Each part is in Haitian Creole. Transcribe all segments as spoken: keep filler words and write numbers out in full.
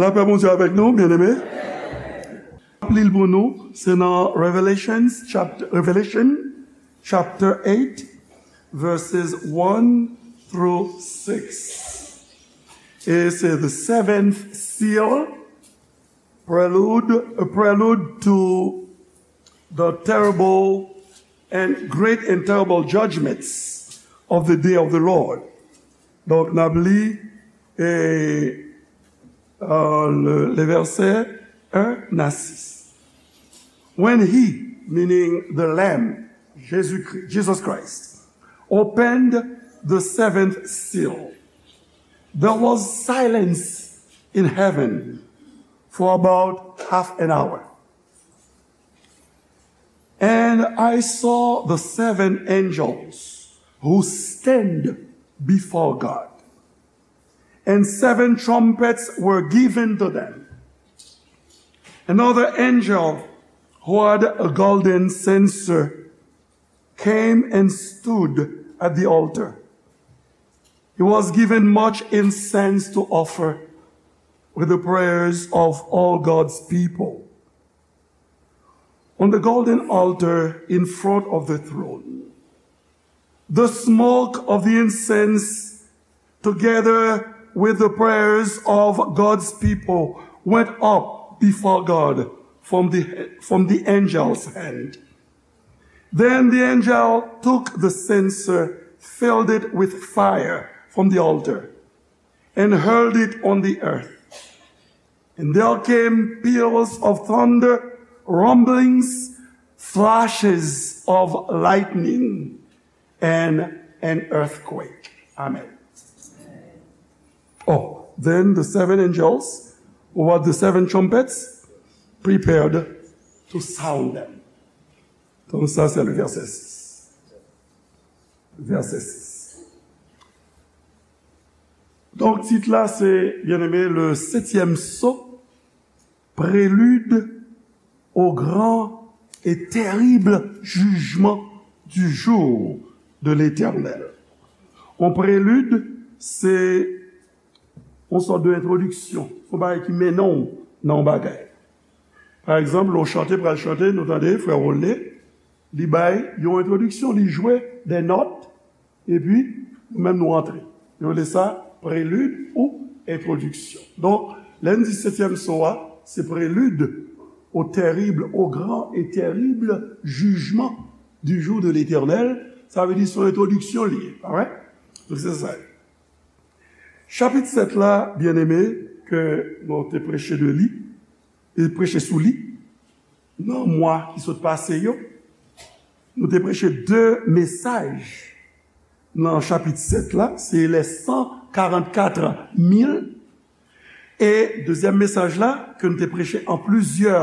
Lapè Bondye avèk nou, byeneme. Li pou nou, se nan Revelations chapter, Revelation chapter eight, verses one through six. E se the seventh seal, prelude, a prelude to the terrible and great and terrible judgments of the day of the Lord. Donk, n ap li, e, e, le, le verset un à six. When he, meaning the Lamb, Jésus-Christ, Jesus Christ, opened the seventh seal, there was silence in heaven for about half an hour. And I saw the seven angels who stand before God. And seven trumpets were given to them. Another angel who had a golden censer came and stood at the altar. He was given much incense to offer with the prayers of all God's people. On the golden altar in front of the throne, the smoke of the incense, together with the prayers of God's people, went up before God from the, from the angel's hand. Then the angel took the censer, filled it with fire from the altar, and hurled it on the earth. And there came peals of thunder, rumblings, flashes of lightning, and an earthquake. Amen. Oh, then the seven angels, who had the seven trumpets, prepared to sound them. Donc ça, c'est le verset six. Verset six. Donk, tit la, se, byeneme, le septième sceau, prélude au grand et terrible jugement du jour de l'Éternel. Yon prelid, se yon sòt de entwodiksyon, yon bagay ki mennen w nan yon bagay. Pa egzanp, lè w chante, pral chante, nou tande frè Rolne, li bay yon entwodiksyon, li jwe de nòt, epi nou menm nou antre. Yo rele sa prelid ou entwodiksyon. Donk, lè n di setyèm so a, se prélude au terrible, au grand et terrible jugement du jour de l'Éternel, sa vle di se yon entwodiksyon li ye, pa vre? Donk, se sa. Chapit sèt la, byeneme, ke nou te preche de li, e preche sou li, nan mwa ki sot pase yo, nou te preche de mesaj nan chapit sèt la, se les cent quarante-quatre mille, e dezyèm mesaj la, ke nou te preche an plizyè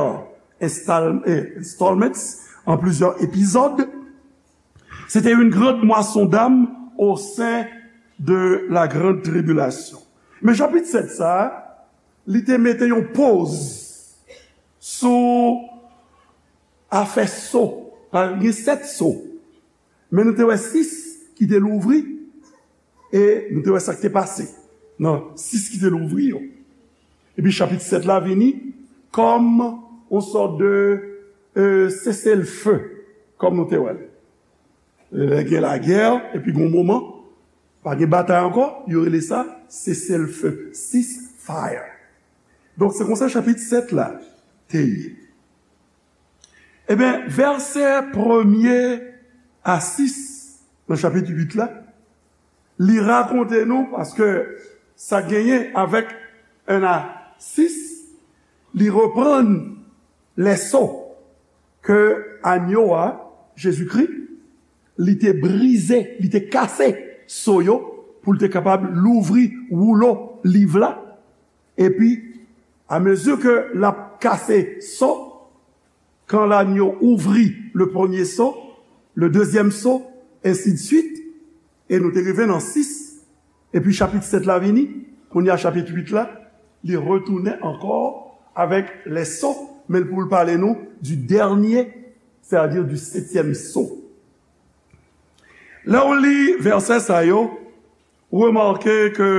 enstal-, eh, installments, an plizyè epizòd, se te une grande moisson d'âmes au sein de la grande tribulation. Men chapit sèt sa, li te mete yon poz sou afè so. Pa gen sèt so. Men nou te wè sis ki te louvri, e nou te wè sa k te pase nan sis ki te louvri yo. Epi chapit sèt la vini kòm yon sòt de, euh, cessez-le-feu, kòm nou te wè l. Lè gen lagè, epi gen yon moman, pa gen batay ankò, yo rele sa cessez-le-feu, ceasefire. Donk, se konsa chapit sèt la te ye. Ebyen, vèsè premye a sis nan chapit uit la, li rakonte nou, paske sa genyen avèk en a sis, li reprann lèso ke anyo a, Jezikri, li te brize, li te kase so yo pou l te kapab louvri woulo liv la. Epi, amezi ke l ap kase so, quand l'agneau ouvrit le premier sceau, le deuxième sceau, ainsi de suite, e nou te rive nan sis, epi chapit sèt la vini, kounye a chapit uit la, li retounen ankò avèk lèso, men l pou l pale nou du dernier, c'est-à-dire du septième sceau. Lè w li vèsè sa yo, ou remake ke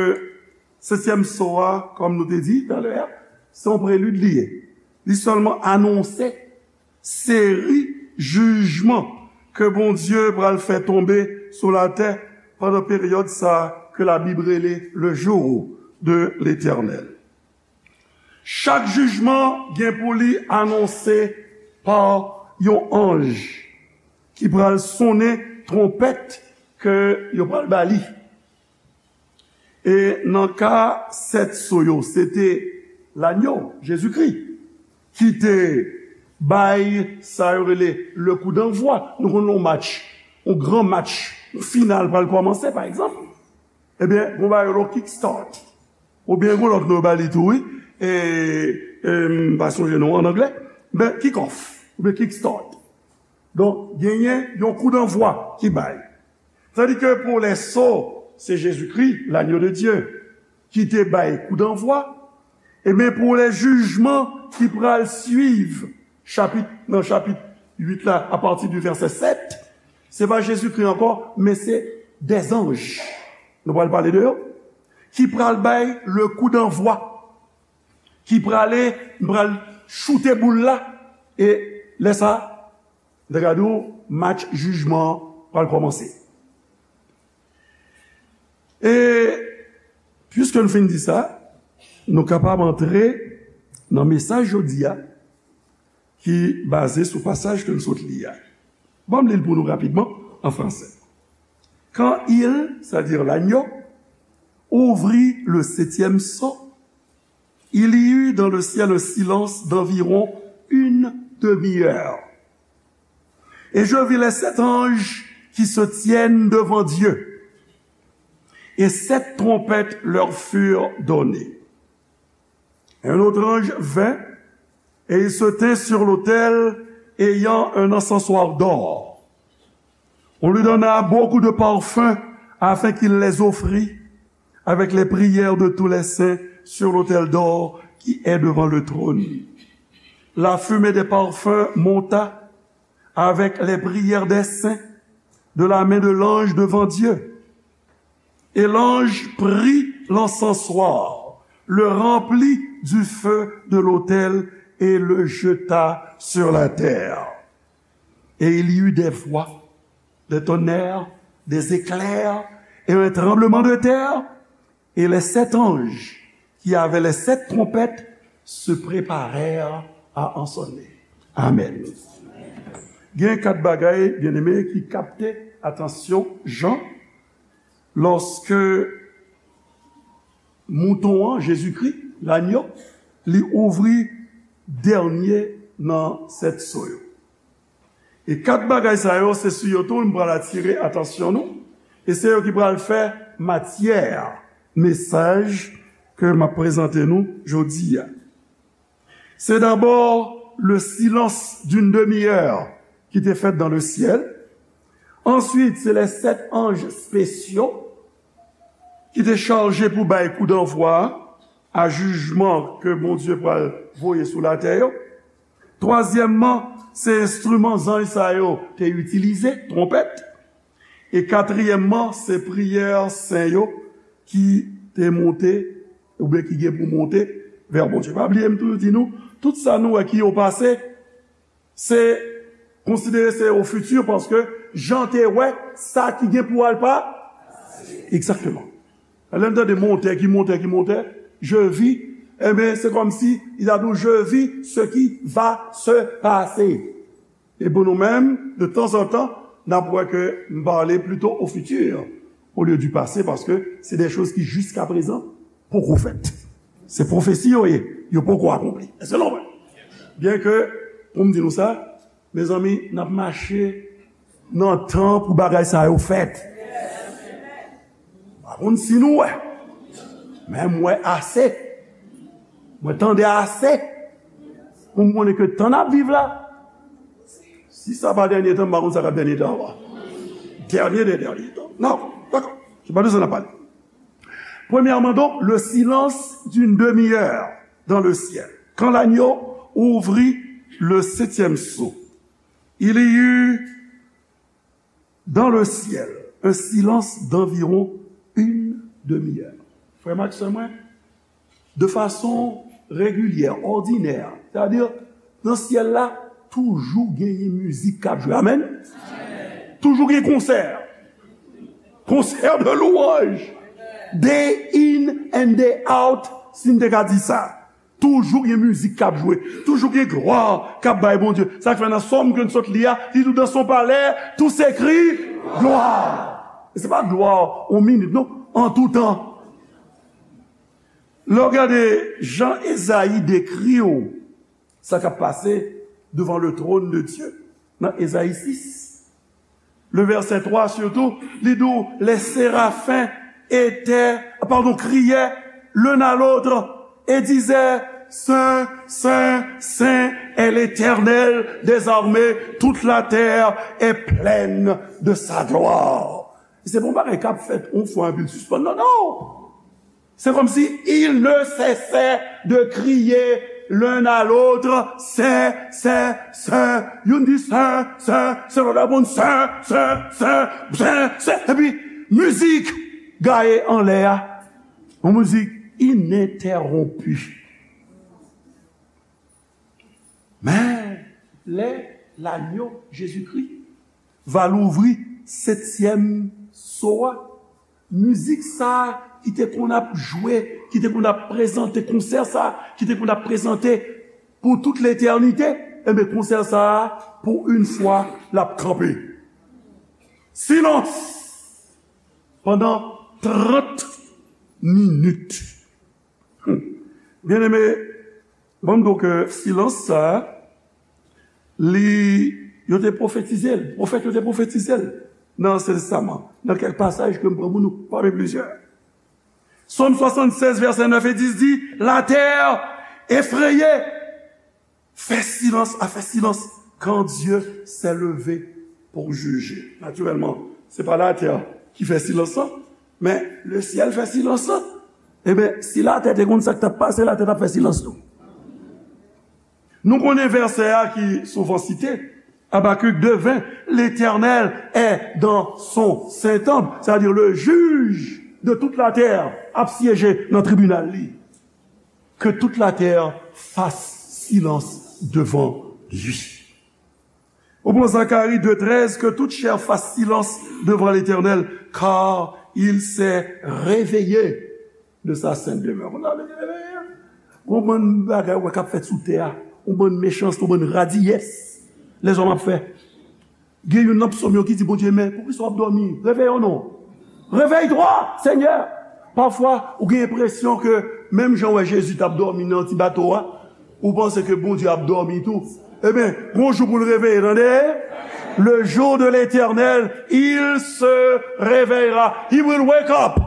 setyèm so a, kòm nou te di talè a, Se yon prelid li ye. Li sèlman anonse seri jijman ke Bondye pral fè tonbe sou latè pandan peryòd sa ke Labib rele le jour de l'Éternel. Chak jijman gen pou li anonse pa yon anj ki pral sonnen twonpèt ke yo pral ba li. E nan ka sèt so yo, se te lanyo, Jezikri, ki te bay sa yo rele le coup d'envoi. Nou konn yon match, yon gran match, yon final pral kòmanse, pa egzanp. Ebyen, gon bagay yo rele kick start. Oubyen gon lòt non yo ba li tou, wi. E, e, m pa sonje non an anglè. Men, kick off, oubyen kick start. Donk, genyen yon coup d'envoi ki bay. Tandis que pour les sots, c'est Jésus-Christ, l'agneau de Dieu, ki te bay coup d'envoi. Ebyen, pou lè jijman ki pral swiv chapit, nan chapit uit la, apati di vèsè sèt, se pa Jezikri ankò, men se dè zanj. Nou pral pale de yo. Ki pral bay le coup d'envoi. Ki prale, pral choute boul la. E lè sa, N te ka di w, match jijman an pral kòmanse. E, piske n fin di sa, nou kapab antre nan mesaj jodi a, ki baze sou pasaj ke n sot li a. Ban m li l pou nou rapidman, an fransè. Quand il, c'est-à-dire l'agneau, ouvrit le septième sceau, il y eut dans le ciel un silence d'environ une demi-heure. Et je vis les sept anges qui se tiennent devant Dieu, et sept trompettes leur furent données. Un autre ange vint, et il se tint sur l'autel, ayant un encensoir d'or. On lui donna beaucoup de parfums afin qu'il les offrît avec les prières de tous les saints sur l'autel d'or qui est devant le trône. La fumée des parfums monta avec les prières des saints de la main de l'ange devant Dieu. Et l'ange prit l'encensoir, le remplit du feu de l'autel et le jeta sur la terre. Et il y eut des voix, des tonnerres, des éclairs et un tremblement de terre, et les sept anges qui avaient les sept trompettes se préparèrent à ensonner. Amen. Gen kat bagay, byeneme, ki kapte atansyon Jan lòske mouton an, Jezikri, lanyo, li ouvri dènye nan sèt so yo. E kat bagay sa yo, se sou yo tou m pral atire atansyon nou, e se yo ki pral fè matyè mesaj ke m ap prezante nou jodi a. C'est d'abord le silence d'une demi-heure ki te fèt dans le ciel. Ensuite, c'est les sept anges spéciaux ki te chaje pou bay kou danvwa a jijman ke Bondye pral voye sou latè yo. Twazyèmman, se enstriman zanj sa yo te itilize, twonpèt. E katriyèmman, se priyè sen yo ki te monte, oubyen ki gen pou monte vè Bondye. Pa bliye m toujou di nou, tout sa nou wè ki o pase, se konsidere se o fiti, paske Jan te wè sa ki gen pou al pa. Egzakteman. Lè n tande montè ki montè ki montè, je vis, enben, se kòmsi li ta di w, je vis ce qui va se passer. E pou nou menm, de tanzantan, n ap wè ke m pale plito o fiti, olye di pase, paske se de choz ki jiska prezan poko fèt. Se pwofesi yo ye, yo poko akonpli. Èske nou wè? Byen ke, pou m di nou sa, mezanmi, n ap mache nan tan pou bagay sa yo fèt. M pa konn si nou wè, men m wè ase. Mwen tande ase pou m konnen ke tan n ap viv la, si sa pa dènye tan, m pa konn sa k ap dènye tan ankò. Dènye de dènye tan. Non, dakò. Se pa de sa n ap pale. Premièrement, donc, le silence d'une demi-heure dans le ciel. Quand l'agneau ouvrit le septième sceau, il y eut dans le ciel un silence d'environ une demi-heure. Frè m ak sè mwen, de fason regilyè, òdinè. Sètadi, nan syèl la, toujou genyen mizik k ap jwe. Amèn? Toujou gen konsè. Konsè de lwanj. Day in and day out, si n te ka di sa. Toujou gen mizik k ap jwe. Toujou gen glwa k ap bay Bondye. Sa k fè nan sòm ke n sot li a, li di, dans son palais, tous écrits gloire. E se pa glwa yon minit, non. An tou tan. Lè w gade jan Ezayi dekri w sa k ap pase devan le trône de Dieu, nan Ezayi sis, le verset trois surtout, li di w, les séraphins étaient, pardon, criaient l'un à l'autre et disaient, Saint, Saint, Saint est l'Éternel des armées, toute la terre est pleine de sa gloire. Se pa yon bagay k ap fèt yon fwa epi l sispann. Non, non! C'est comme si ils ne cessaient de crier l'un à l'autre, Saint, Saint, Saint. Youn di, Saint, Saint, Saint, lòt la réponn, Saint, Saint, Saint, Saint, Saint. Epi, mizik gaye anlè a. Yon mizik ininterwonpi. Men, lè Lanyo, Jezikri, va louvri setyèm so a, mizik sa a ki te konn ap jwe, ki te konn ap prezante, konsè sa a ki te konn ap prezante pou tout letènite, enben, konsè sa a, pou yon fwa, l ap kanpe. Silans pandan trant minit. Byeneme, ban m di w ke silans sa a, li, yo te pwofetize l, pwofèt yo te pwofetize l nan Ansyen Testaman, nan kèk pasaj ke m pran pou nou, pami plizyè. Sòm swasannsèz, vèsè nèf e dis di, La terre effrayée fait silence, a fait silence quand Dieu s'est levé pour juger. Natirèlman, se pa latè ki fè silans lan, men le ciel fè silans lan. Ebyen, si latè te konn sa k t ap pase, latè t ap fè silans tou. Nou konnen vèsè a ki souvan site, Habacuc deux vingt, L'Éternel est dans son saint temple, c'est-à-dire le juge de toute la terre ap syeje nan tribinal li. Que toute la terre fasse silence devant lui. Ou pran Zacharie deux treize, que toute chair fasse silence devant l'Éternel, car il s'est réveillé de sa sainte demeure. Ou ta vle reveye? Gon bann bagay ou wè k ap fèt sou tè a, yon bann mechanste, yon bann radiyès lèzòm ap fè. Gen youn nan psòm yo ki di, Bondye, men poukisa w ap dòmi? Réveillons-nous. Réveille-toi, Seigneur. Pafwa, ou gen enpresyon ke menm jan w wè Jezi t ap dòmi nan ti bato a, ou panse ke Bondye ap dòmi tou. Ebyen, gon jou pou l reveye, tande? Le jour de l'Éternel, il se réveillera. He will wake up.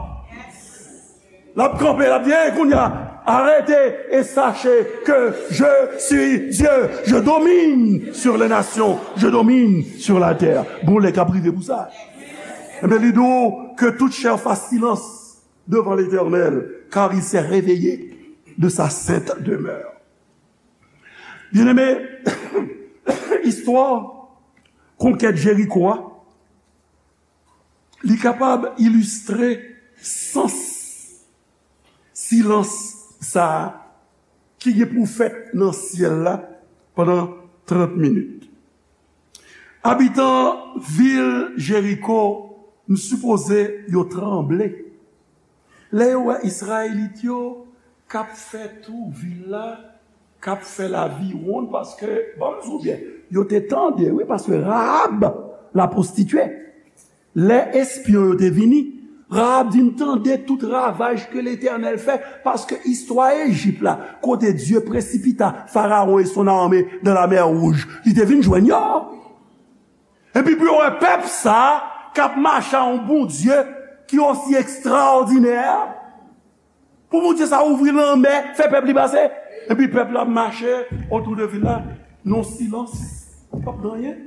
L ap kanpe, l ap di, Hey, kounye a, arrêtez et sachez que je suis Dieu. Je domine sur les nations. Je domine sur la terre. Gon lè k ap rive pou sa. Ebyen, li di w, Que toute chair fasse silence devant l'Éternel, car il s'est réveillé de sa sainte demeure. Byeneme, istwa konkèt Jeriko a, li kapab ilistre sans silans sa a ki gen pou fèt nan syèl la pandan trant minit. Abitan vil Jeriko, m sipoze yo tranble lè yo wè Izrayelit yo k ap fè tou vil la, k ap fè laviwonn, paske, ban m di w byen, yo te tande, wi, paske Rahab, lapwostitye, lè espyon yo te vini, Rahab di, M tande tout ravaj ke Letènèl fè, paske istwa Ejip la, kote Dieu précipita Pharaon et son armée dans la mer Rouge, li te vin jwenn yo. Epi pou yo wè pèp sa a k ap mache a yon Bondye ki osi ekstraòdinè, pou Bondye sa a ouvri lanmè, fè pèp li pase, epi pèp la ap mache otou de vil la, nan silans, p ap gen anyen.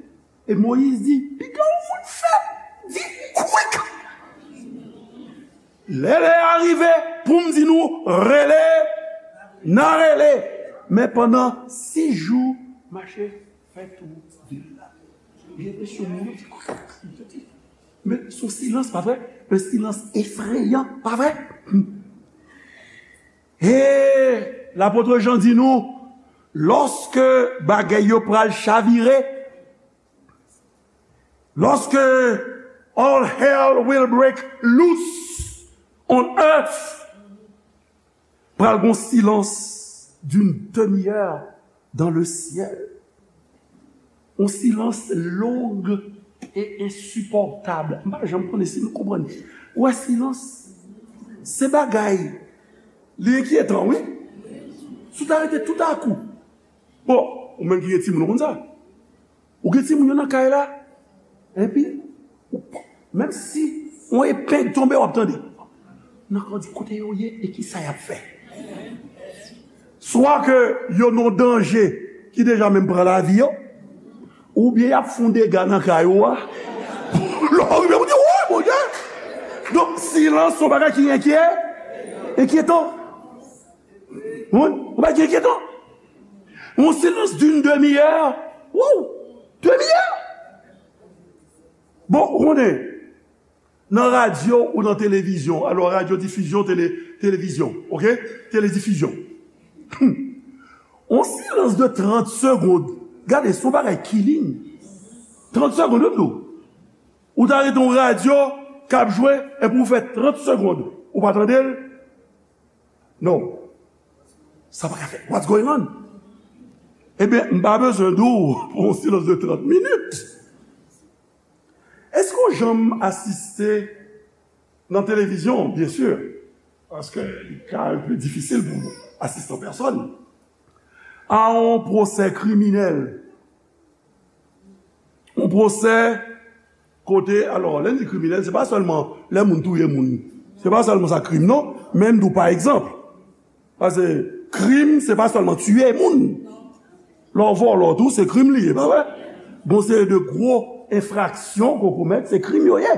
E Moyiz di, Piga yon moun fè, di, Kwik! Lè lè a rive pou m di nou, Rele, n a rele. Men pandan sis jou, mache fè tou vil la. Gen enpresyon moun yo di, Men se yon silans, pa vre? Un silence effrayant, pa vre? E Lapot Jan di nou, lòske bagay yo pral chavire, lòske all hell will break loose on earth, pral gon silans d'une demi-heure dans le ciel. Yon silans long e ensipòtab. M pa janm konnen si nou konprann. Ou wè silans? Se bagay. Li enkyetan, wi. Si w ta rete toutakou. Bon, ou menm ki gen timoun, ou konn sa. Ou gen timoun yo nan kay la. Epi, ou pa, menm si yon epeng tonbe, w ap tande. Nan kè w di kote yo ye e ki sa y ap fè. Swa ke yo nan danje ki deja menm pran lavi yo, oubyen y ap fè yon dega nan kay ou a. Lè w rive, ou di, woy, Bondye! Donk, silans se yon bagay ki enkyè, enkyetan. Yon bagay ki enkyètan. Yon silans d'une demi-heure. Wow! Demi-heure! Bon, ou konnen, nan radyo ou nan televizyon, alò radyo difizyon, tele, televizyon, oke? Teledifision. Yon silans de trant segonn. Gade, se yon bagay killing. Trant segonn, wi, m di w. Ou ta rete yon radyo k ap jwe, epi ou fè trant segonn. Ou pa tande l? Non. Sa pa ka fèt. What's going on? Ebyen, m pa bezwen di w pou yon silans de trant minit. Èske w janm asiste nan televizyon, byen si, paske li ka un peu difisil pou asiste an pèsòn, a yon pwosè kriminèl? Yon pwosè kote, alò, lè n di kriminèl, se pa sèlman lè moun touye moun. Se pa sèlman sa krim, non. Men m di w, pa egzanp, paske krim, se pa sèlman tiye moun. Lè w vòlò tou, se krim li ye, pa vre? Gon seri de gwo enfraksyon ke w komèt, se krim yo ye.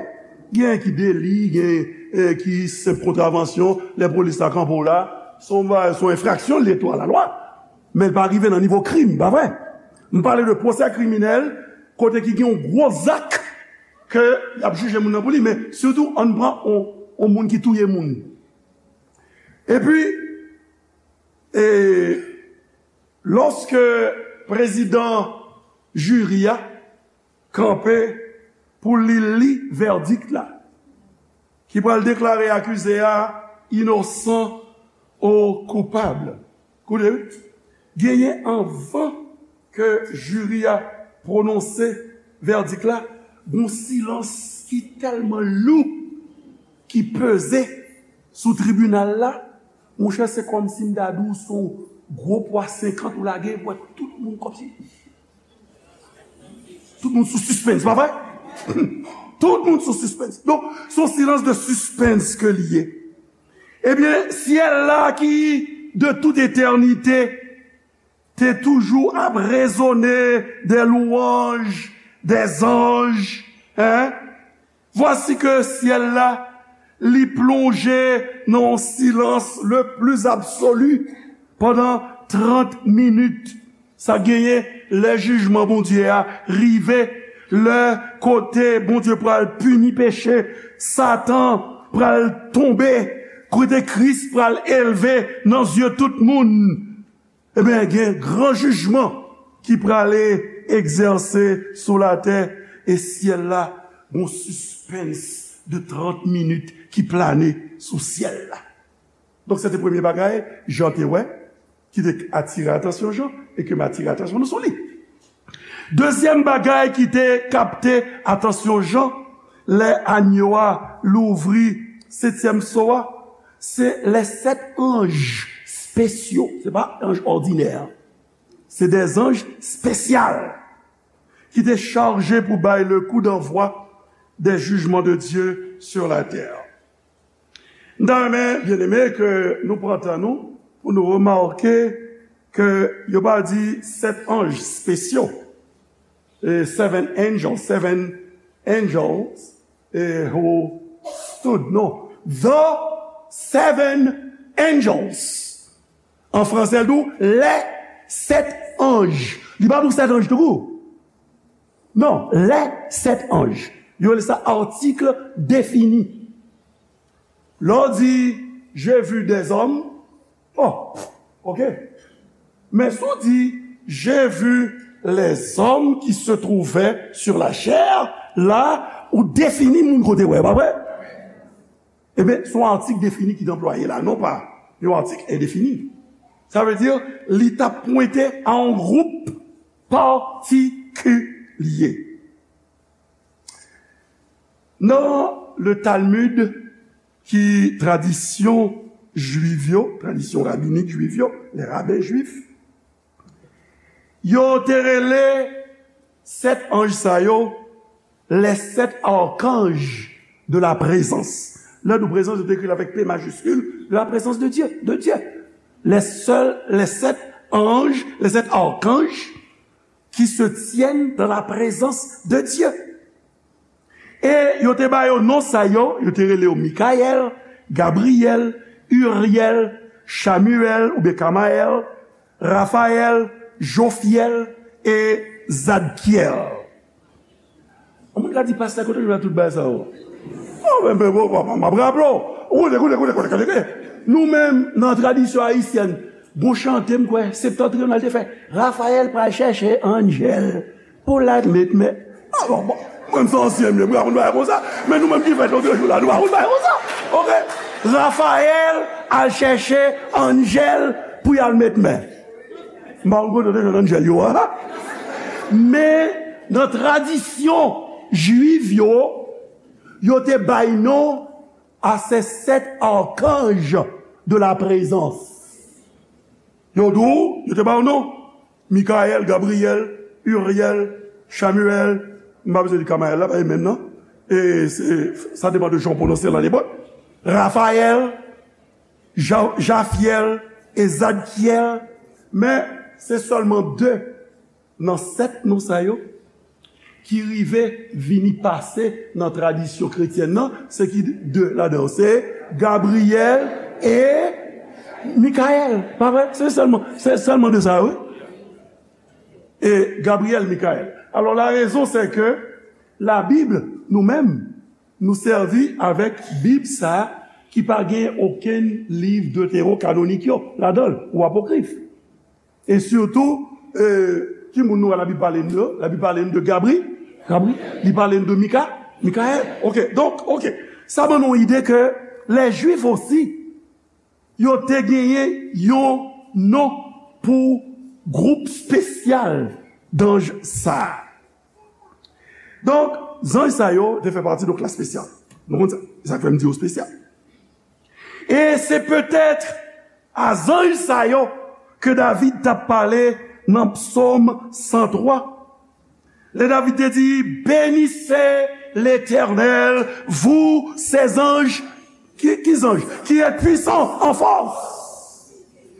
Gen ki deli, gen, eh, ki senp kontravansyon, lè polis la kanpe w la, se yon ba-, se yon enfraksyon li ye tou a la lwa. Men l pa rive nan nivo krim, pa vre? M pale de pwosè kriminèl, kote ki gen yon gwo zak ke y ap jije moun nan pou li, men sitou ann pran yon, yon moun ki touye moun. Epi, e, lòske prezidan jiri a kanpe pou li li vèdik la, ki pral deklare akize a inosan ou koupab. Koute, wi. Genyen anvan ke jiri a pwononse vèdik la, gon silans ki tèlman lou, ki peze sou tribinal la, monchè, se kòmsi m ta di w se yon gwo pwa senkant ou lage, ou wè tout moun kòmsi. Tout moun sou sispens, pa vre? Tout moun sou sispens. Donk, se yon silans de sispens ke li ye. Ebyen, syèl la ki de tout etènite te toujou ap rezone des louanges des anges, hein? Vwasi ke syèl la, li plonje nan yon silans le plis absoli pandan trant minit. Sa genyen lè jijman Bondye a rive, lè kote Bondye pral pini peche, Satan pral tonbe, kote Kris pral elve nan zye tout moun. Ebyen, gen gran jijman ki prale egzèse sou latè e syèl la, gon sispens de trant minit ki plane sou syèl la. Donk, se te premye bagay Jan te wè, ki te atire atansyon Jan, e ke m atire atansyon nou sou li. Dezyèm bagay ki te kapte atansyon Jan, lè anyo a louvri setyèm so a, se les sept anges spéciaux. Se pa anj òdinè. Se des anges spéciaux ki te chaje pou bay le coup d'envoi des jugements de Dieu sur la terre. M ta renmen, byeneme, ke nou pran tan nou pou nou remake ke yo pa di sèt anj spesyo, e, seven angels, seven angels, e, who stood, non, the seven angels. An franse, l di w, les sept anges. Li pa di w sèt anj tou kou. Non, les sept anges. Yo rele sa article défini. Lè w di, j'ai vu des hommes, oh, Ok? Men si w di, j'ai vu les hommes qui se trouvaient sur la chair, la, ou defini moun kote w ye, pa vre? Ebyen, se yon atik defini ki t anplwaye la, non pa yon atik endefini. Sa vle di, li t ap pwente a yon gwoup patikilye. Nan le Talmud, ki tradisyon jwiv yo, tradisyon rabinik jwiv yo, les rabbins juifs, yo te rele sèt anj sa yo les sept archanges de la présence. Lè nou prezans, yo te ekri l avèk P majiskil, de la présence de Dieu, de Dieu. Les seuls, les sept anges, les sept archanges qui se tiennent dans la présence de Dieu. E yo te ba yo non sa yo, yo te rele yo Mikayèl, Gabriyèl, Iryèl, Chamiyèl oubyen Kamayèl, Rafayèl, Jofyèl e Zadkyèl. Yon moun ka di, "Pastè, kote w jwenn tout bagay sa yo?" Oh, men, men, bon, bon, m ap raple w. Koute, koute, koute, koute, koute. Nou menm, nan tradisyon ayisyèn, gon chante, m kwè, Septentrional te fè, Rafayèl pral chèche Angèl pou l al met men. Ah, bon, bon. Mwen, m se ansyen, m ye, m pa konn bagay konsa. Men nou menm ki fèt lòt jou la, nou pa konn bagay konsa. Ok? Rafayèl al chèche Angèl pou y al met men. M pa konn kote yo te jwenn Angèl yo a. Men, nan tradisyon jwiv yo, yo te bay non à ces sept archanges de la présence. Yo di w, yo te ba yo non. Mikayèl, Gabriyèl, Iryèl, Chamiyèl, m pa bezwen di Kamayèl la, pa e menm nan. E se, sa depann de jan w pwononse l an ebre. Rafayèl, Ja-, Jafyèl e Zadkyèl, men se sèlman de nan sèt non sa yo ki rive vini pase nan tradisyon kretyèn nan, se ki de ladan yo, se Gabriyèl e Mikayèl, pa vre? Se sèlman, se sèlman de sa yo, wi. E Gabriyèl, Mikayèl. Alò, la rezon, se ke Labib, nou menm, nou sèvi avèk Bib sa a ki pa gen okenn liv deterokanonik yo ladan l, ou apokrif. E sitou, e, ki moun nou wè Labib pale n de yo? Labib pale n de Gabri, Gabri, li pale n de Mika, Mikayèl. Ok, donk, ok. Sa ban nou ide ke lè Jwif osi, yo te genyen yon non pou gwoup espesyal danj sa a. Donk, zanj sa yo te fè pati de klas espesyal. Nou konn sa. Se sa k fè m di yo espesyal. E se petèt a zanj sa yo ke David t ap pale nan Psòm san twa. Lè David te di, "Bénissez l'Éternel, vous ses anges, qui, qui anges, qui êtes puissants en force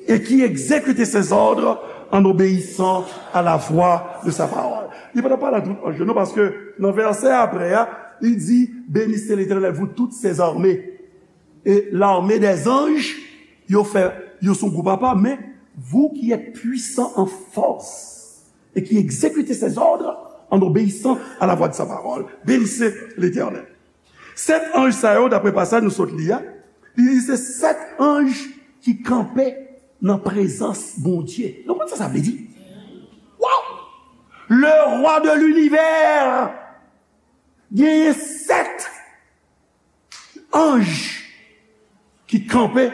et qui exécutez ses ordres en obéissant à la voix de sa parole." Li pa t ap pale a tout anj yo, non, paske nan vèsè apre a, li di, "Bénissez l'Éternel, vous toutes ses armées." E l'armée des anges, yo fè, yo se yon gwoup apa, men, "vous qui êtes puissants en force et qui exécutez ses ordres en obéissant à la voix de sa parole, bénissez l'Éternel." Sèt anj sa yo, daprè pasaj nou sot li a, li di se sèt anj ki kanpe nan prezans Bondye. Nou konn sa sa vle di? Waw! Le roi de l'univers genyen sèt anj ki kanpe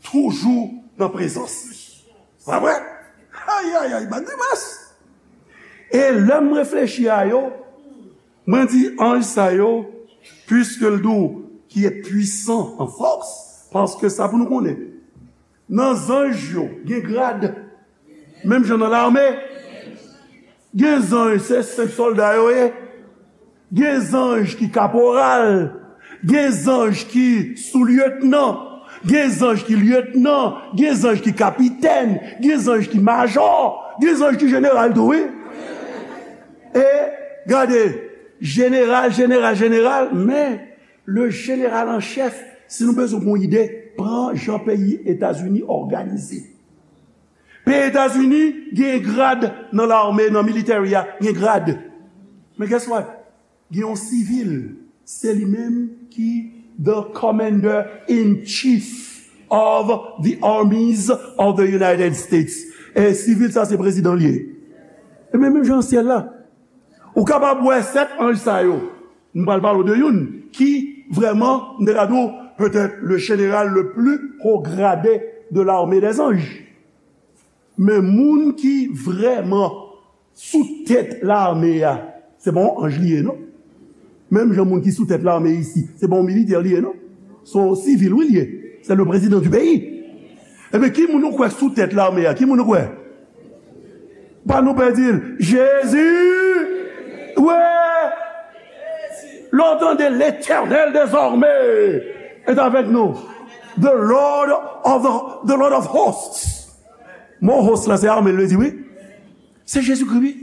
toujou nan prezans li. Pa vre? Ay, ay, ay, ban dimas! E lè m reflechi a yo, mwen di anj sa yo, puiske l di w ki est puissant en force, paske sa pou nou konnen, nan zanj yo, gen grad. Menm jan nan lame, gen zanj, se senp sòlda yo ye. Gen zanj ki kaporal. Gen zanj ki soulyetnan. Gen zanj ki lyetnan. Gen zanj ki kapitèn. Gen zanj ki majò. Gen zanj ki jeneral tou, wi. E, gade, jeneral, jeneral, jeneral, men le jeneral an chèf, si nou bezwen yon ide, pran jan peyi Etazini òganize. Peyi Etazini gen grad nan lame, nan military a, gen grad. Men guess what? Gen yon sivil, se li menm ki the commander in chief. of the armies of the United States. E sivil sa se prezidan li ye. E men menm jan syèl la. Ou kapab wè sèt anj sa yo. M pral pale w de youn ki vrèman, m te ka di w, peut-être le général le plus haut gradé de l'armée des anges. Men moun ki vrèman sou tèt lame a, se pa yon anj li ye, non. Menm jan moun ki sou tèt lame isi, se pa yon militè li ye, non. Se yon sivil, wi, li ye. Se le président du pays. Ebyen, ki moun ou kwè sou tèt lame a? Ki moun ou kwè? Pa nou pè di l, Jezi! Wi! Lè w tande, L'Éternel des armées est avec nous. The Lord of the, the Lord of hosts. Mo host la, se ame l vle di, wi. Se Jezikri, wi.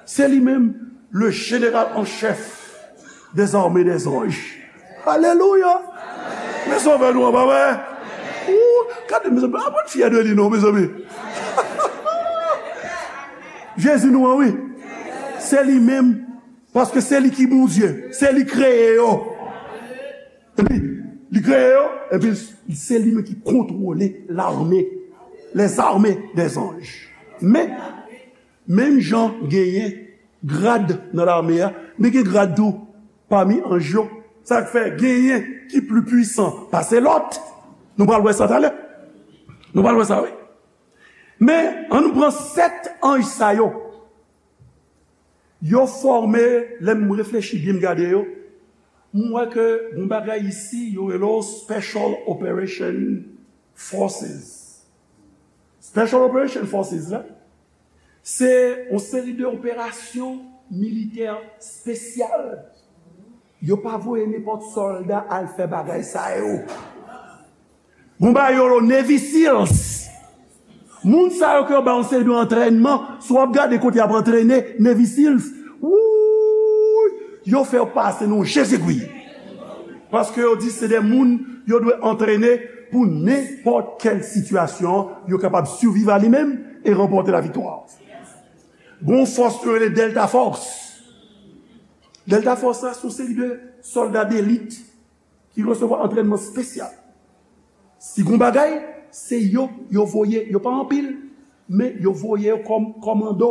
Se li menm, le général en chef des armées des anges. Alelouya! Men sovè nou an, pa vre? Ou, gade, mezanmi, pa n fyè de li, non, mezanmi. Jezi nou an, wi. Se li menm, paske se li ki Bondye, se li kreye yo. Epi, li kreye yo, epi se li menm ki kontwole lame, les armées des anges. Men, menm jan genyen grad nan lame a, men gen grad tou pami anj yo. Sa k fè genyen ki pli pwisan pase lòt. Nou pral wè sa talè. Nou pral wè sa, wi. Men, ann nou pran sèt anj sa yo. Yo fòme, lè m reflechi byen, m gade yo, m wè ke yon bagay isi, yo rele yo Special Operation Forces. Special Operation Forces la, se yon seri de operasyon militè espesyal. Yo pa voye nenpòt sòlda al fè bagay sa yo. Gon bagay yo rele Navy SEALs. Moun sa yo ke yo ba yon seri de antrènman, si w ap gade kote y ap antrene Navy SEALs, wouy, yo fè yo pase nan yon jezegwi. Paske yo di se de moun yo dwe antrene pou nenpòt kèl sitiyasyon, yo kapab siviv a li menm e ranpòte laviktwa. Gon fòs yo rele Delta Force. Delta Force la, se yon seri de sòlda delit ki resevwa antrènman espesyal. Si gon bagay, se yo, yo voye, yo pa anpil, men yo voye yo kòm kòmando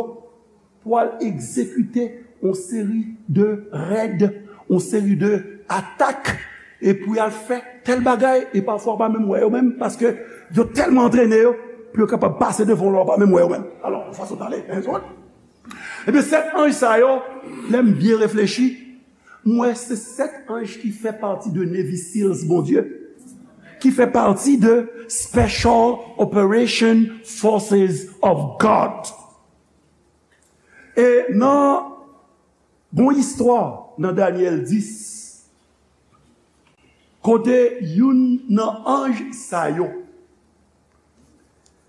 pou al egzekite yon seri de rèd, yon seri de atak, e pou y al fè tèl bagay, e pafwa w pa menm wè yo menm, paske yo tèlman antrene yo, pou yo kapab pase devan w la, w pa menm wè yo menm. Alò, yon fason pale, en zòt. Ebyen, sèt anj sa yo, lè m byen reflechi, m wè se sèt anj ki fè pati de Navy SEALs Bondye, ki fè pati de Special Operation Forces of God. E nan gon istwa nan Danyèl dis, kote youn nan anj sa yo,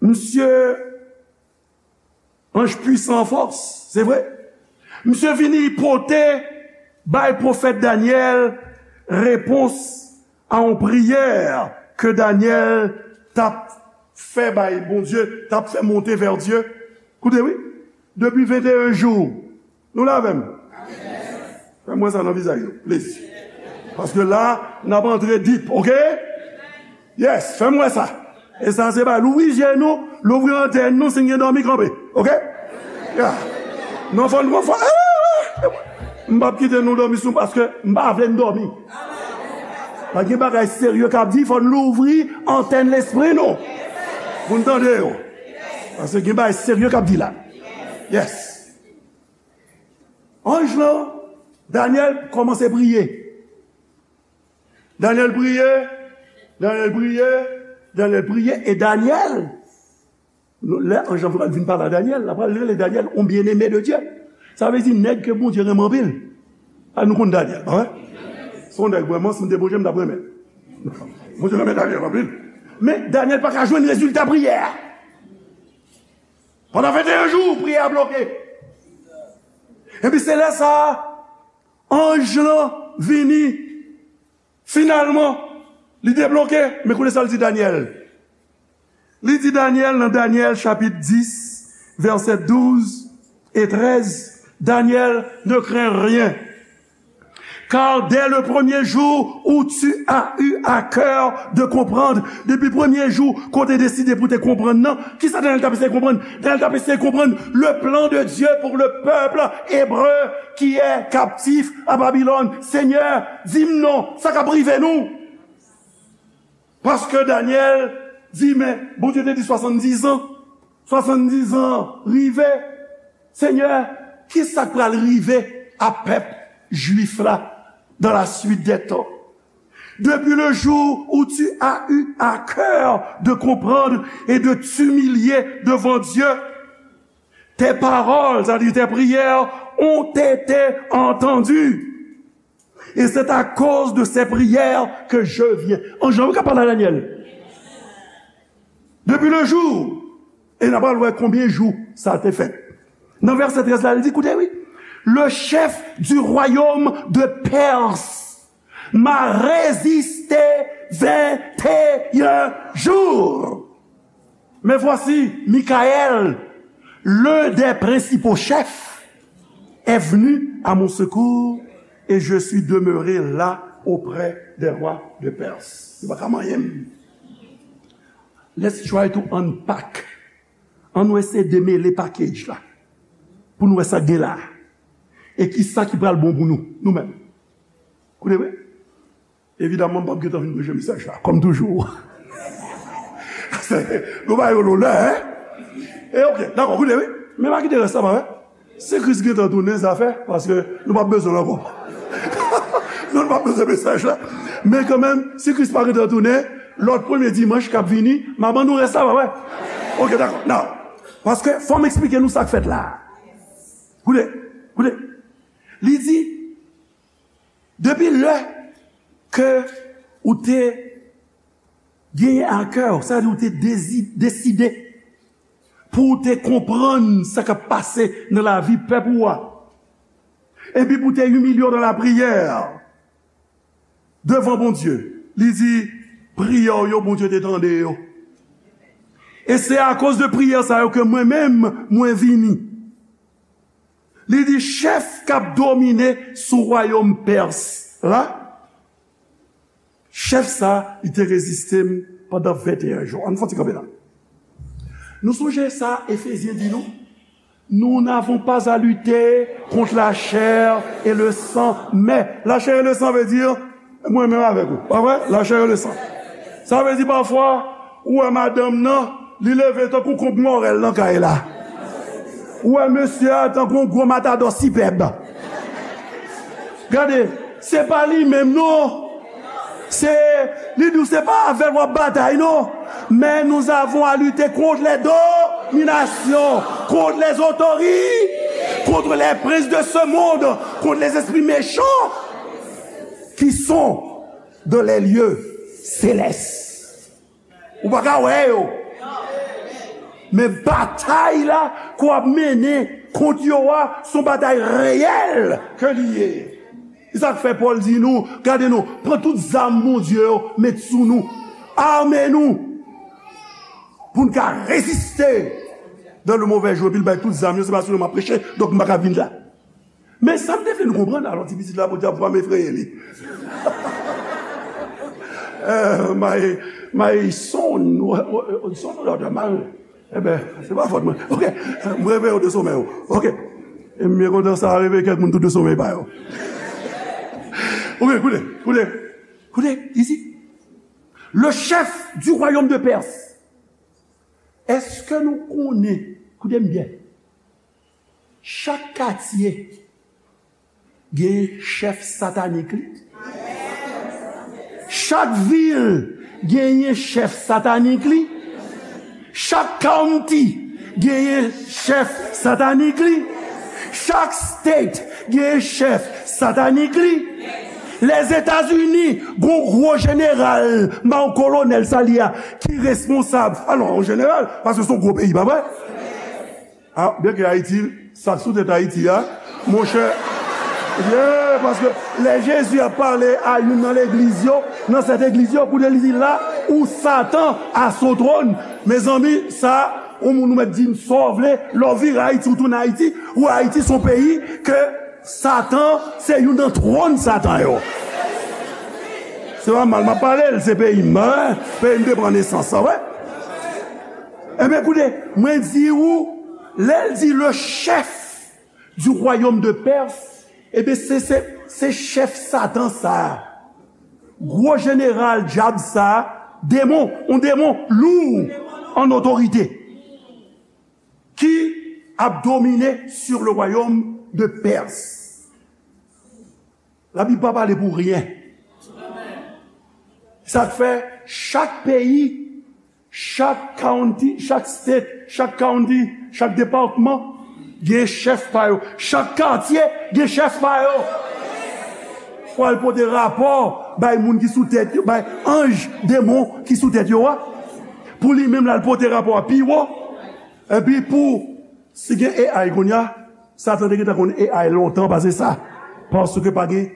misye anj pwisan an fòs, se vre. Misye vini pote bay pwofèt Danyèl repons a yon priyè ke Danyèl t ap fè bay Bondye, t ap fè monte vè Dye. Koute, wi. Depi venteyen jou, nou la avè m? Fè m wè sa nan vizaj nou, please. Paske la, n ap antre deep, oke? Yes, fè m wè sa. E sa se pa louvri je nou, louvri antèn nou, si n gen dòmi kanpe, oke? Yeah. Non, fò n, fò, eh, m p ap kite nou dòmi sou, paske m pa vle n dòmi. Pa gen bagay serye k ap di, fò n louvri antèn lespri nou pou n tande yo. Paske gen bagay serye k ap di la. Yes. Anj lan, Danyèl kòmanse priye. Danyèl priye, Danyèl priye, Danyèl priye, e Danyèl, lè anj lan pral vin pale a Danyèl, l ap pral rele Danyèl yon bien-aimé de Dieu. Sa vle di nèg ke Bondye renmen anpil. A, nou konn Danyèl, pa vre? Se yon nèg vrèman, si m te Bondye, m t ap renmen. Bondye renmen Danyèl anpil. Men Danyèl pa ka jwenn rezilta priyè a. Pandan venteyen jou, priyè a bloke. Epi se lè sa a, anj lan vini. Finalman, li debloke. Men koute sa l di Danyèl. Li di Danyèl nan Danyèl chapit dis, vèsè douz e trèz, Danyèl, ne crains rien. Car dès le premier jour où tu as eu à cœur de comprendre, depi premye jou ke w te deside pou te konprann nan, kisa Daniel t ap eseye konprann? Daniel t ap eseye konprann le plan de Dieu pour le peuple hébreu qui est captif à Babylone. Senyè, di m non, sa k ap rive nou? Paske Danyèl di, men, Bondye te di swasanndiz an. Swasanndiz an rive. Senyè, kisa k pral rive a pèp jwif la dans la suite des temps? Depuis le jour où tu as eu à cœur de comprendre et de t'humilier devant Dieu, tes paroles, c'est-à-dire tes prières, ont été entendues. Et c'est à cause de ces prières que je viens. Anj lan wi k ap pale a Danyèl. Depi le jou, e n a pral wè konbyen jou sa te fèt. Nan vèsè trèz la, li di, koute wi, le chef du royaume de Perse m'a résisté vingt et un jours. Mais voici, Michaël, l'un des principaux chefs, est venu à mon secours et je suis demeuré là auprès des rois de Perse. Li pa ka manyen m. Let's try to unpack. Ann nou eseye demele package la. Pou nou wè sa k gen la. E kisa ki pral bon pou nou, nou menm. Koute wi. Evidaman, m p ap gentan fin preche mesaj la, kòm toujou. Nou ba yo lonè, en? E oke, dakò, koute, wi. Men pa kite rès la pa, wi. Si Kris gentan tounen, zafè, paske nou p ap bezwen l ankò. Non, nou p ap bezwen mesaj la. Men kanmenm, si Kris pa gentan tounen, lòt premye dimanch k ap vini, m a ban nou rès la, pa, wi. Oke, dakò. Now, paske fò m eksplike nou sa k fèt la. Koute, koute. Li di, depi lè ke ou te genyen a kè w, sa vle di ou te dezi-, deside pou w te konprann sa k ap pase nan lavi pèp ou a, epi pou w te imilye w nan lapriyè devan Bondye, li di, priyè w yo, Bondye te tande yo. E se akoz de priyè sa yo ke mwen menm, mwen vini. Li di, chèf k ap domine sou wayòm Pès la, chèf sa, li te reziste m pandan venteyen jou. Ann fè yon ti kanpe la. Nou sonje sa Efezyen di nou? Nous n'avons pas à lutter contre la chair et le sang, mais la chair et le sang veut dire mwen menm avèk ou, pa vre? La chair et le sang. Sa vle di pafwa, ou wè madanm nan, li leve tankou konb mòrèl nan kay la. Ou wè mesye a tankou yon gwo matadò sipèb. Gade, se pa li menm non. Se, li di w se pa avè l w ap batay non. Mais nous avons à lutter contre les dominations, contre les autorités, contre les princes de ce monde, contre les esprits méchants qui sont dans les lieux célestes. Ou pa ka wè yo. Men batay la ke w ap mennen kont yo a, se yon batay reyèl ke li ye. Se sa k fè Pòl di nou, gade non, pran tout zam Bondye yo, met sou nou. Ame nou. Pou n ka reziste dans le mauvais jour. Epi l bay tout zam yo, se pa sou yo m ap preche, donk m pa ka vin la. Men sa m te vle nou konprann, alò, ti pitit la, Bondye ap pa m efreye li. Eh, my, my son, son, daughter, my, eh ben, se pa fòt mwen. Ok, m reveye w de somèy ou. Ok. E m byen kontan sa reveye kèk moun tou de somèy pa yo. Ok, koute, koute, koute, isi. Le chef du royaume de Perse. Èske nou konnen, koute m byen, chak katye gen chèf satanik li. Chak vil genyen chèf satanik li. Chak county genyen chèf satanik li. Chak state genyen chèf satanik li. Lèzetazini gon gwo jeneral, ma yon kolonèl sa li a, ki responsab. Alò, yon jeneral, paske se yon gwo peyi, pa vre? Ah, byen ke Ayiti, sa k sou tèt Ayiti a, monchè, yeah, paske lè Jezi ap pale a youn nan legliz yo, nan sèt egliz yo, koute li di la, ou Satan à son trône. Mezanmi, sa, yon moun ou mèt di m sa w vle, lè w vire Ayiti, ou tounen Ayiti, ou Ayiti se yon peyi ke Satan se youn nan twòn Satan yo. Se pa mal m ap pale l, se peyi m, hein? Peyi m te pran nesans, sa vre? Ebyen, koute, mwen di ou, lè l di le chef du royaume de Perse, ebyen, se, se, se chèf Satan sa a. Gwo jeneral dyab sa a, demon, yon demon lou an otorite, ki ap domine sur le royaume de Perse. Labib pa pale pou ryen. Sa k fè chak peyi, chak county, chak state, chak county, chak depatman gen chèf pa yo. Chak katye gen chèf pa yo. Pou al pote rapò bay moun ki sou tèt yo, bay anj demon ki sou tèt yo a. Pou li menm l al pote rapò a pi wo. Epi pou, si gen A I kounye a, Satan te gentan konn A I lontan pase sa. Paske pa gen,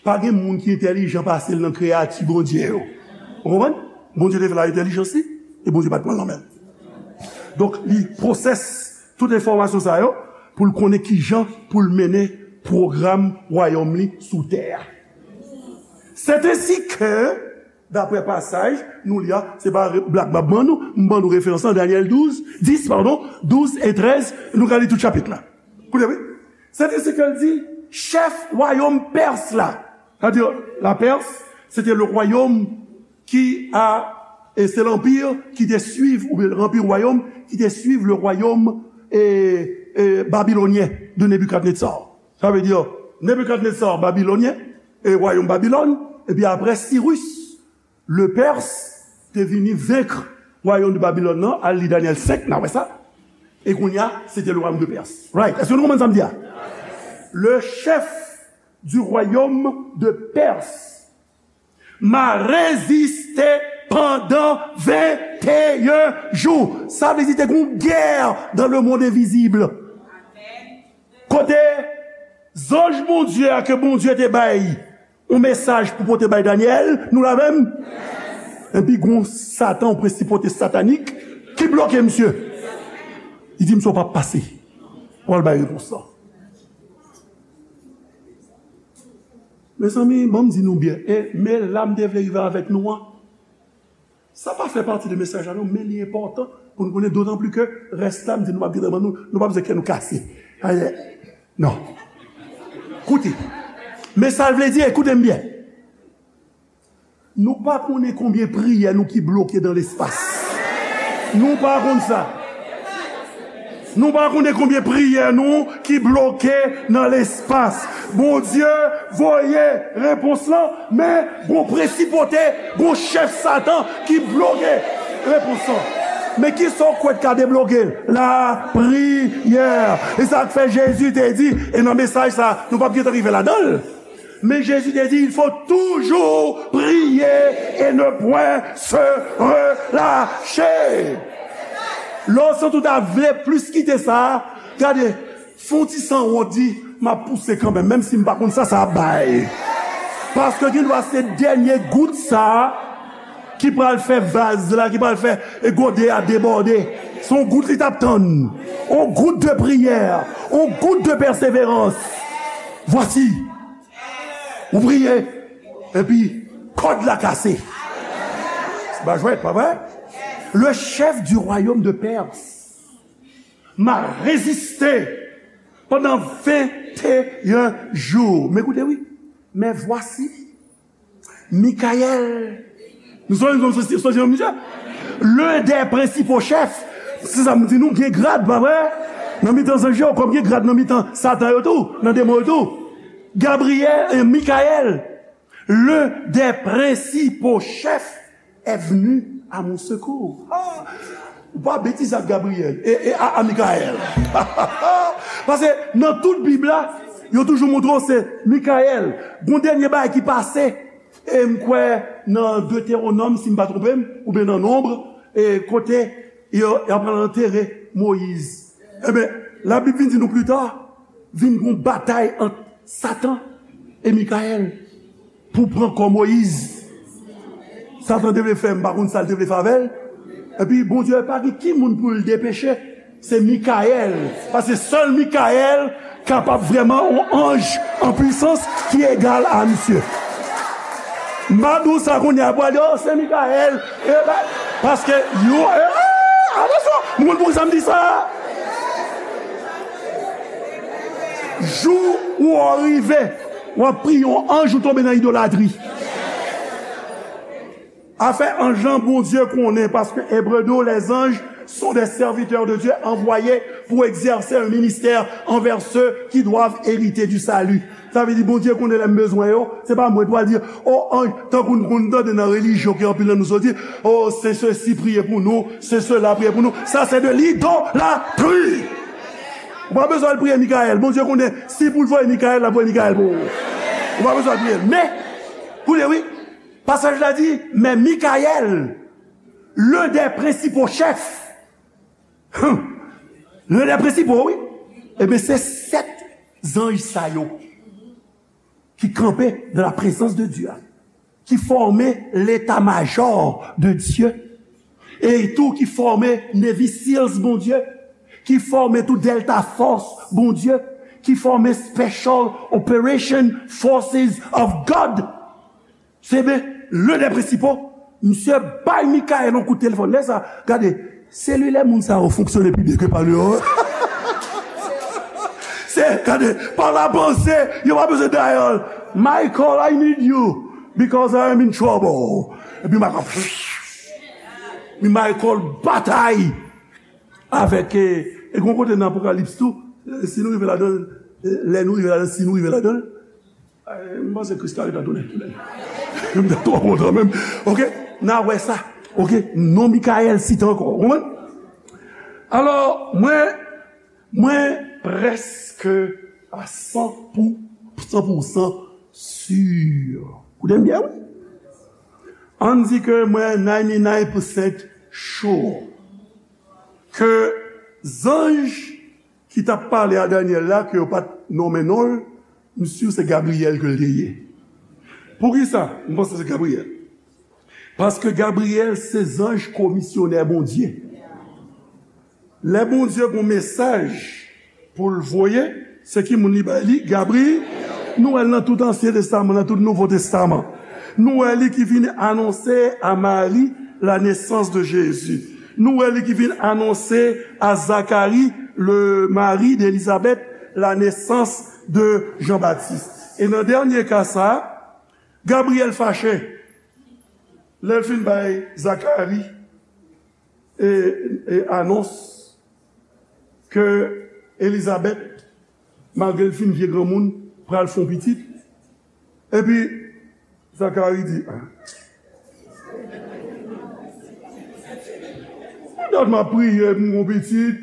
pa gen moun ki entèlijan pase l nan kreyati Bondye yo. Ou konprann? Bondye te fè l a entèlijans li, e Bondye pa t pran l nan men l. Donk, li pwosès tout enfòmasyon sa yo pou l konnen kijan pou l mennen pwogram wayòm li sou tè a. C'est ainsi que, daprè pasaj nou li a, se pa re-, blag m ap ban nou, m ban nou referans lan, Danyèl douz, dis, padon, douz e trèz, nou ka li tout chapit la. Koute, wi. C'est ainsi que l di, chèf wayòm Pès la, sa vle di, la Perse, se te le royaume qui a, e se lanpir ki te swiv, oubyen lanpir wayòm ki te swiv le royaume, e, e, babylonien de Nebuchadnezzar. Sa vle di, Nebikadneza, Babilonyen, e wayòm Babilòn, epi apre Sirus, le Pers, te vini venk wayòm de Babilòn nan, al li Danyèl senk, n a wè sa. E kounye a, se te le royaume de Perse. Right. Èske nou konprann sa m di a? Le chef du royaume de Perse m'a résisté pendant vingt et un jours. Sa vle di te gen yon gè dans le monde invisible. Kote zanj Bondye a ke Bondye te bay yon mesaj pou pote bay Danyèl, nou la menm? Epi gon Satan, yon prensipalite satanik ki bloke misye. Li di misye w p ap pase. Ou al bay repons lan. Mezanmi, ban m di nou byen, e men la m te vle rive avèk nou an, sa pa fè pati de mesaj la non, men li enpòtan pou nou konnen, dotan pli ke rès la, m di nou p ap gentan ban nou, nou p ap bezwen kè nou kase. Ayè. Non. Koute. Men sa l vle di, ekoute m byen. Nou pa konnen konbyen priyè nou ki bloke nan lespas. Nou pa konn sa. Nou pa konnen konbyen priyè nou ki bloke nan lespas. Bondye voye repons lan, men gon prensipalite, gon chèf Satan ki bloke repons lan. Men kisa w kwè k ka debloke l? Lapriyè. E sa k fè Jezi te di, e nan mesaj sa, nou p ap gentan rive ladan l. Men Jezi te di, il faut toujours prier et ne point se relâcher. Lè w santi w ta vle plis kite sa, gade, fè yon ti sanwont, di, m ap pouse kanmenm, menm si m pa konn sa sa ap bay. Paske gendwa se dènye gout sa ki pral fè vaz la, ki pral fè e gode a debòde. Se yon gout li t ap tann. Yon gout de priyè, yon gout de pèseverans. Voici. Ou priye, epi kòd la kase. Se pa jwèt, pa vre? Le chef du royaume de Perse m'a résisté pendant vingt et un jours. Men koute, wi. Mais voici, Michael. Nou sonje, nou sonje, sonje, misye? L'un des principaux chefs. Se sa m di nou, gen grad, pa vre? Nan mitan zanj yo, kòm gen grad nan mitan Satan yo tou, nan demon yo tou. Gabriyèl, e Michael, l'un des principaux chefs est venu à mon secours. Ah, ou pa betize ak Gabriyèl, e, e a, a Michael. Paske nan tout Bib la, yo toujou montre w se Michael. Gon dènye bagay ki pase, e m kwè nan Detewonòm, si m pa twonpe m, oubyen nan Nonb, e kote yo, y ap pral antere Moyiz. Ebyen, Labib vin di nou pli ta, vin gon batay ant Satan e Michael pou pran kò Moyiz. Satan te vle fè, m pa konn sa l te vle fè avè l. Epi Bondye pa gen ki moun pou l depeche, se Michael. Paske sèl Michael kapab vrèman yon anj an pwisans ki egal a misye. M pa di w sa kounye a, pou al di, "Oh, se Mikayèl." E pa, paske yo, e, atansyon, m konn poukisa m di sa. Jou ou rive, w ap priye yon anj, ou tonbe nan idolatri. Afè anj lan, Bondye konnen, paske Ebre di w, les anges sont des serviteurs de Dieu envoyés pour exercer un ministère envers ceux qui doivent hériter du salut. Sa vle di, Bondye konnen lè m bezwen yo, se pa mwen pou al di, "Oh, anj," tankou n konn tande nan relijyon ke anpil nan nou soti, "Oh, se sesi priye pou nou, se sela priye pou nou." Sa se de lidolatri. Ou pa bezwen al priye Mikayèl. Bondye konnen, si pou l voye Mikayèl, l ap voye Mikayèl pou ou. Ou pa bezwen al priye l. Men, koute, wi. Pasaj la di, men Mikayèl, l'un des principaux chefs, hum, l'un des principaux, wi, ebyen, se sèt zanj sa yo ki kanpe dans la présence de Dieu, ki fòme l'état-major de Dieu, e tou ki fòme Navy SEALs, Bondye, ki fòme tou Delta Force, Bondye, ki fòme Special Operation Forces of God. Se ben, l'un des principaux, misye bay Mikayèl yon kout telefòn. Lè sa, gade, selilè moun sa yo fonksyone pi byen ke pa nou yo. Se, gade, pa la panse, yo pa bezwen dayòl. "Michael, I need you because I am in trouble." Epi Michael, epi Michael batay avèk, e, e gon kote nan Apokalips tou, e, si nou rive ladan, e, lè nou rive ladan, si nou rive ladan, e, m panse Kris ka retounen, tounen. M ta twò kontan menm. Oke, n a wè sa. Oke, non Mikayèl site ankò. Ou konprann? Alò, mwen, mwen prèske a san pou, san pou san si. Koute m byen, wi. Ann di ke mwen ninety-nine percent sure ke zanj ki t ap pale a Danyèl la, ke yo pa t nonmen non l, m si se Gabriyèl ke l te ye. Poukisa m panse se Gabriyèl? Paske Gabriyèl se zanj komisyonè Bondye. Lè Bondye gon mesaj pou l voye, se ki moun li bay li? Gabri-, nou wè l nan tout Ansyen Testaman, nan tout Nouvo Testaman. Nou wè li ki vin anonse a Mari la nesans de Jezi. Nou wè li ki vin anonse a Zakari, le mari de Elizabeth, la nesans de Jan Batis. E nan dènye ka sa a, Gabriyèl fache lè l fin bay Zakari e, e anons ke Elizabèt, malgre l fin vye granmoun, pral fè yon pitit. Epi, Zakari di, "Ah, dat m ap priye pou m gon pitit,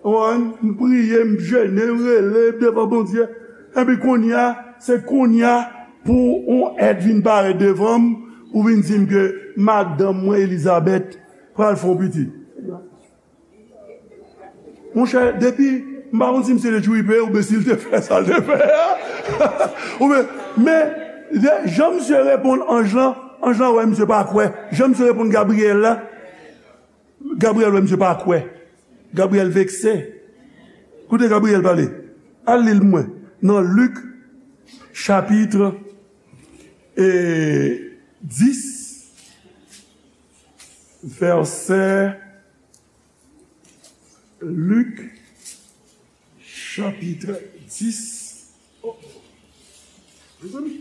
w konprann, m priye, m jene, m rele devan Bondye. Epi kounye a, se kounye a pou yon èt vin parèt devan m, ou vin di m ke madanm mwen, Elizabèt, pral fè yon pitit." Monchè, depi, m pa konn si misye te tripe oubyen si l te fè sa l te fè a. Oubyen, men, de, jan misye reponn anj lan, anj lan wè misye pa kwè. Jan misye reponn Gabriyèl la, Gabriyèl wè misye pa kwè. Gabriyèl vekse. Koute Gabriyèl pale. Al li l pou mwen. Nan Lik, chapit, e, dis, vèsè Lik, chapit dis. Oh, mezanmi.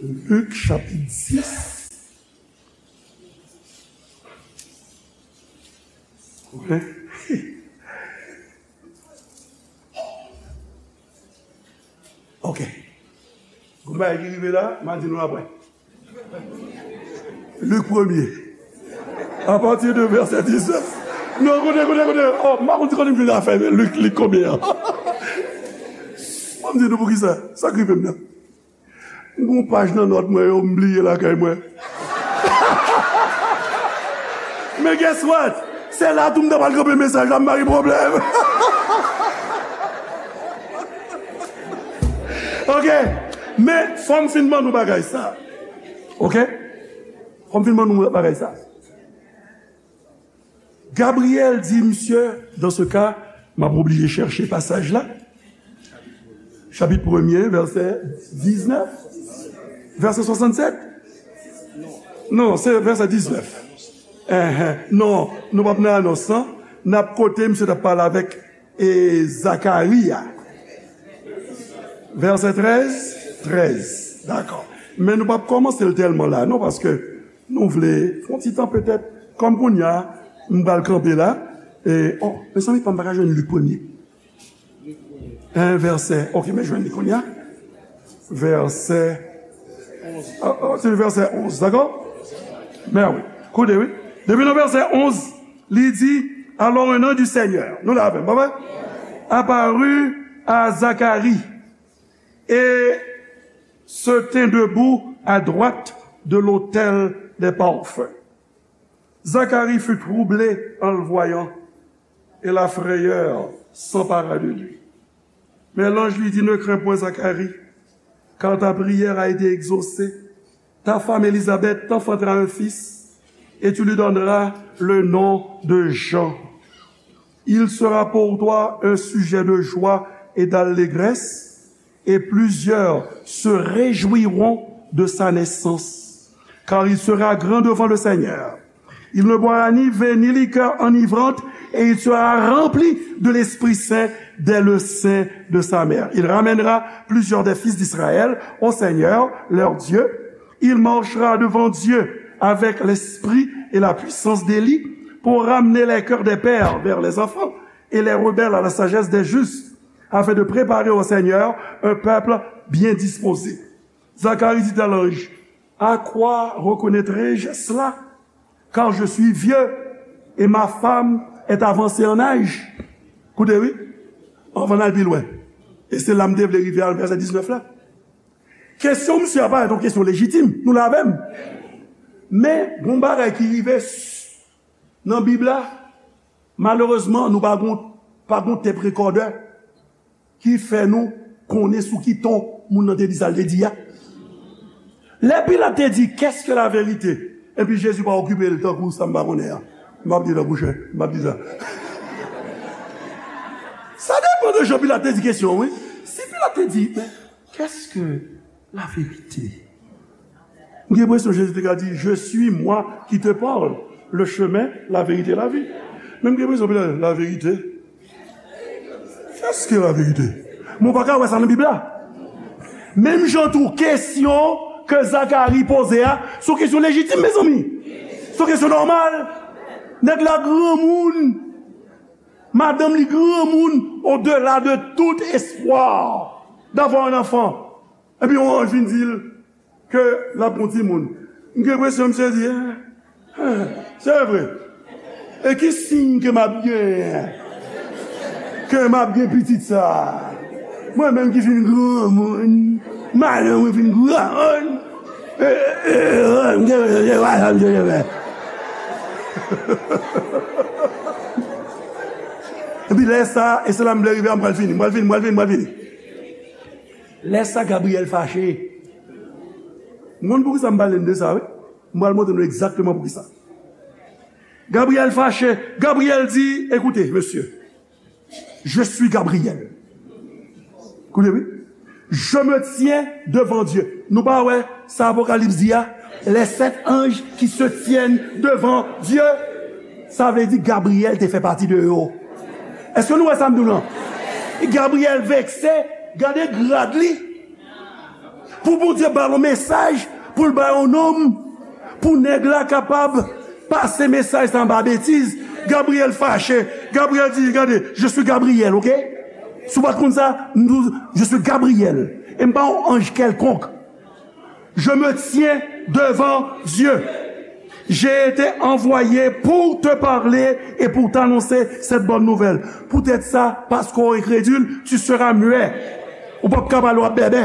Lik, chapit dis. Wi. Ok. Gon bagay ki rive la, m a di nou apre. Lik premye. A pati de vèsè diznèf. Non, koute, koute, koute. Oh, m pa konn si kote m jwenn afè Lik, Lik konbyen an. Ban m di nou poukisa. Sa k rive m nan. M gon paj nan nòt mwen yo, m bliye lakay mwen. Men guess what? Se la tou m ta pral kanpe mesaj la, m pa gen pwoblèm. Ok? Men fò m fin ban nou bagay sa. Ok? Fò m fin ban nou bagay sa. Gabriyèl di misye, dans ce cas, m ap oblije chèche pasaj la. Chapit premye, vèsè diznèf, vèsè swasannsèt. Non, se vèsè diznèf. Enhen. Non, nou p ap nan anons lan. N ap kote misye t ap pale avèk, e, Zakari a. Vèsè trèz, trèz. Dakò. Men nou p ap kòmanse l tèlman la, non, paske nou vle fè yon ti tan petèt, kòm kounye a, m pral kanpe la. E, oh, mezanmi, pa m pa ka jwenn Lik premye. En vèsè, ok, men jwenn li kounye a. Vèsè, oh, oh, se vèsè onz, dakò? Men wi, koute, wi. Depi nan vèsè onz, li di, alors un ange du Seigneur, nou la avè m, pa vre? Apparut à Zacharie et se tint debout à droite de l'autel des parfums. Zacharie fut troublé en le voyant, et la frayeur s'empara de lui. Mais l'ange lui dit, ne crains point, Zacharie, car ta prière a été exaucée. Ta femme Élisabeth t'enfantera un fils, et tu lui donneras le nom de Jean. Il sera pour toi un sujet de joie et d'allégresse, et plusieurs se réjouiront de sa naissance, car il sera grand devant le Seigneur. Il ne boira ni vin ni liqueur enivrante, et il sera rempli de l'Esprit Saint dès le sein de sa mère. Il ramènera plusieurs des fils d'Israël au Seigneur, leur Dieu. Il marchera devant Dieu avec l'esprit et la puissance d'Élie pour ramener les cœurs des pères vers les enfants et les rebelles à la sagesse des justes, afin de préparer au Seigneur un peuple bien disposé. Zacharie dit à l'ange, à quoi reconnaîtrai-je cela? Car je suis vieux et ma femme est avancée en âge. Koute, wi, anvan n al pi lwen. E se la m te vle rive a, vèsè diznèf la. Kesyon misye a parèt yon kesyon lejitim. Nou la avè m? Men, gon bagay ki rive s-, nan Bib la, malerezman, nou pa gon, pa gon tep rekòdè ki fè nou konnen sou ki ton moun nan te di sa l te di a. Lè Pilat te di, qu'est-ce que la vérité? Epi Jezi pa okipe l tankou sa m pa konnen an. M ap di l an pwochen, m ap di sa. Sa depann de jan Pilat te di kesyon, wi. Si Pilat te di, mais qu'est-ce que la vérité? M gen enpresyon Jezi te ka di, je suis moi qui te parle, le chemin, la vérité, la vie. Men m gen enpresyon Pilat, la vérité? Qu'est-ce que la vérité? Men w pa ka wè sa nan Bib la. Menm jan tou, kesyon ke Zakari poze a, se yon kesyon lejitim, mezanmi. Se yon kesyon nòmal. Nèg la granmoun. Madanm li granmoun, au-delà de tout espoir d'avoir un enfant. Epi yon anj vin di l ke l ap gon timoun. M gen enpresyon misye di, ah, ah, se vre. E ki siy ke m ap gen? Ke m ap gen pitit sa? Mwen menm ki fin granmoun, madanm mwen fin granmoun. E, e, e, e, m gen enpresyon se pa sa misye te fè. Epi lè sa, e se la m vle rive a, m pral fini, m pral fini, m pral fini, m pral fini. Lè sa, Gabriyèl fache. M konn poukisa m pale n de sa, wi. M pral montre nou egzakteman poukisa. Gabriyèl fache. Gabriyèl di, écoutez, monsieur, je suis Gabriel. Koute, wi. Je me tiens devant Dieu. Nou pa wè sa Apokalips di a? Les sept anges qui se tiennent devant Dieu. Sa vle di Gabriyèl te fè pati de yo. Èske nou wè sa m di w lan? Gabriyèl vekse, gade grad li. Pou Bondye ba l yon mesaj, pou l ba yon nonm, pou nèg la kapab pase mesaj sa anba betiz, Gabriyèl fache. Gabriyèl di, gade, je suis Gabriel, ok? Si w pa t konn sa, m di w, je suis Gabriel. E m pa yon anj kèlkonk. Je me tiens devant Dieu. J'ai été envoyé pour te parler et pour t'annoncer cette bonne nouvelle. Poutèt sa, paske w enkredil, tu seras muet. Ou p ap ka pale, w ap bèbè.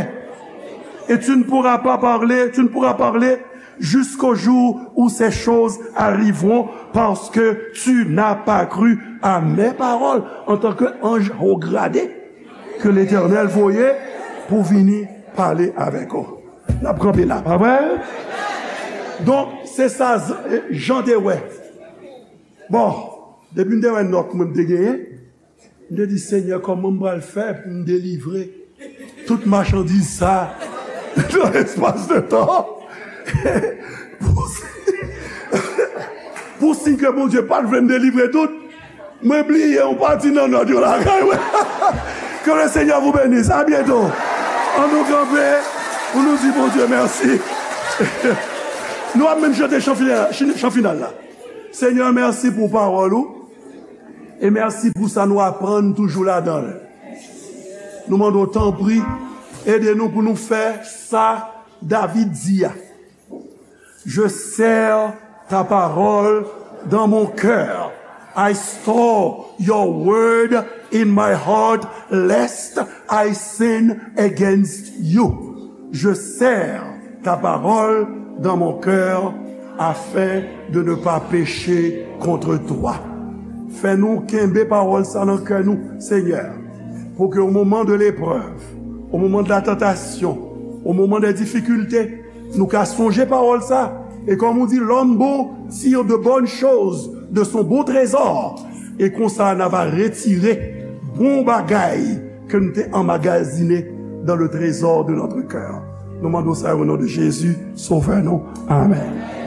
Et tu ne pourras pas parler, tu ne pourras parler jusqu'au jour où ces choses arriveront, parce que tu n'as pas cru à mes paroles en tant que ange haut gradé que l'Éternel voyait pour venir parler avec eux. N ap kanpe la, pa vre? Donk, se sa Z-, Jan te wè. Bon, Depi m te wè nòt mwen m te genyen, m te di, Senyè, kòman m pral fè pou m delivre tout machandiz sa nan espas de tan? Pou, pou siy ke Bondye pa t vle m delivre tout, mwen bliye yon pati nan nòt yo lakay mwen. Que le Seigneur vous bénisse. À bientôt. An nou kanpe pou nou di Bondye mèsi. Nou ap menm chante chan final, chan final la. Senyè, mèsi pou pawòl ou. E mèsi pou sa nou aprann toujou ladan l. Nou mande w, tanpri, ede nou pou nou fè sa David di a. Je serre ta parole dans mon cœur. I store your word in my heart, lest I sin against you. Je serre ta parole dans mon cœur afin de ne pas pécher contre toi. Fè nou kenbe pawòl sa nan kè nou, Senyè, pou ke au moment de l'épreuve, au moment de la tentation, au moment des difficultés, nou ka sonje pawòl sa. E kòm ou di, l'homme bon tire de bonnes choses de son bon trésor. E konsa, n a va retire bon bagay ke nou te anmagazine dans le trésor de notre cœur. Nou mande w sa o non de Jezi, Sovè nou. Amèn.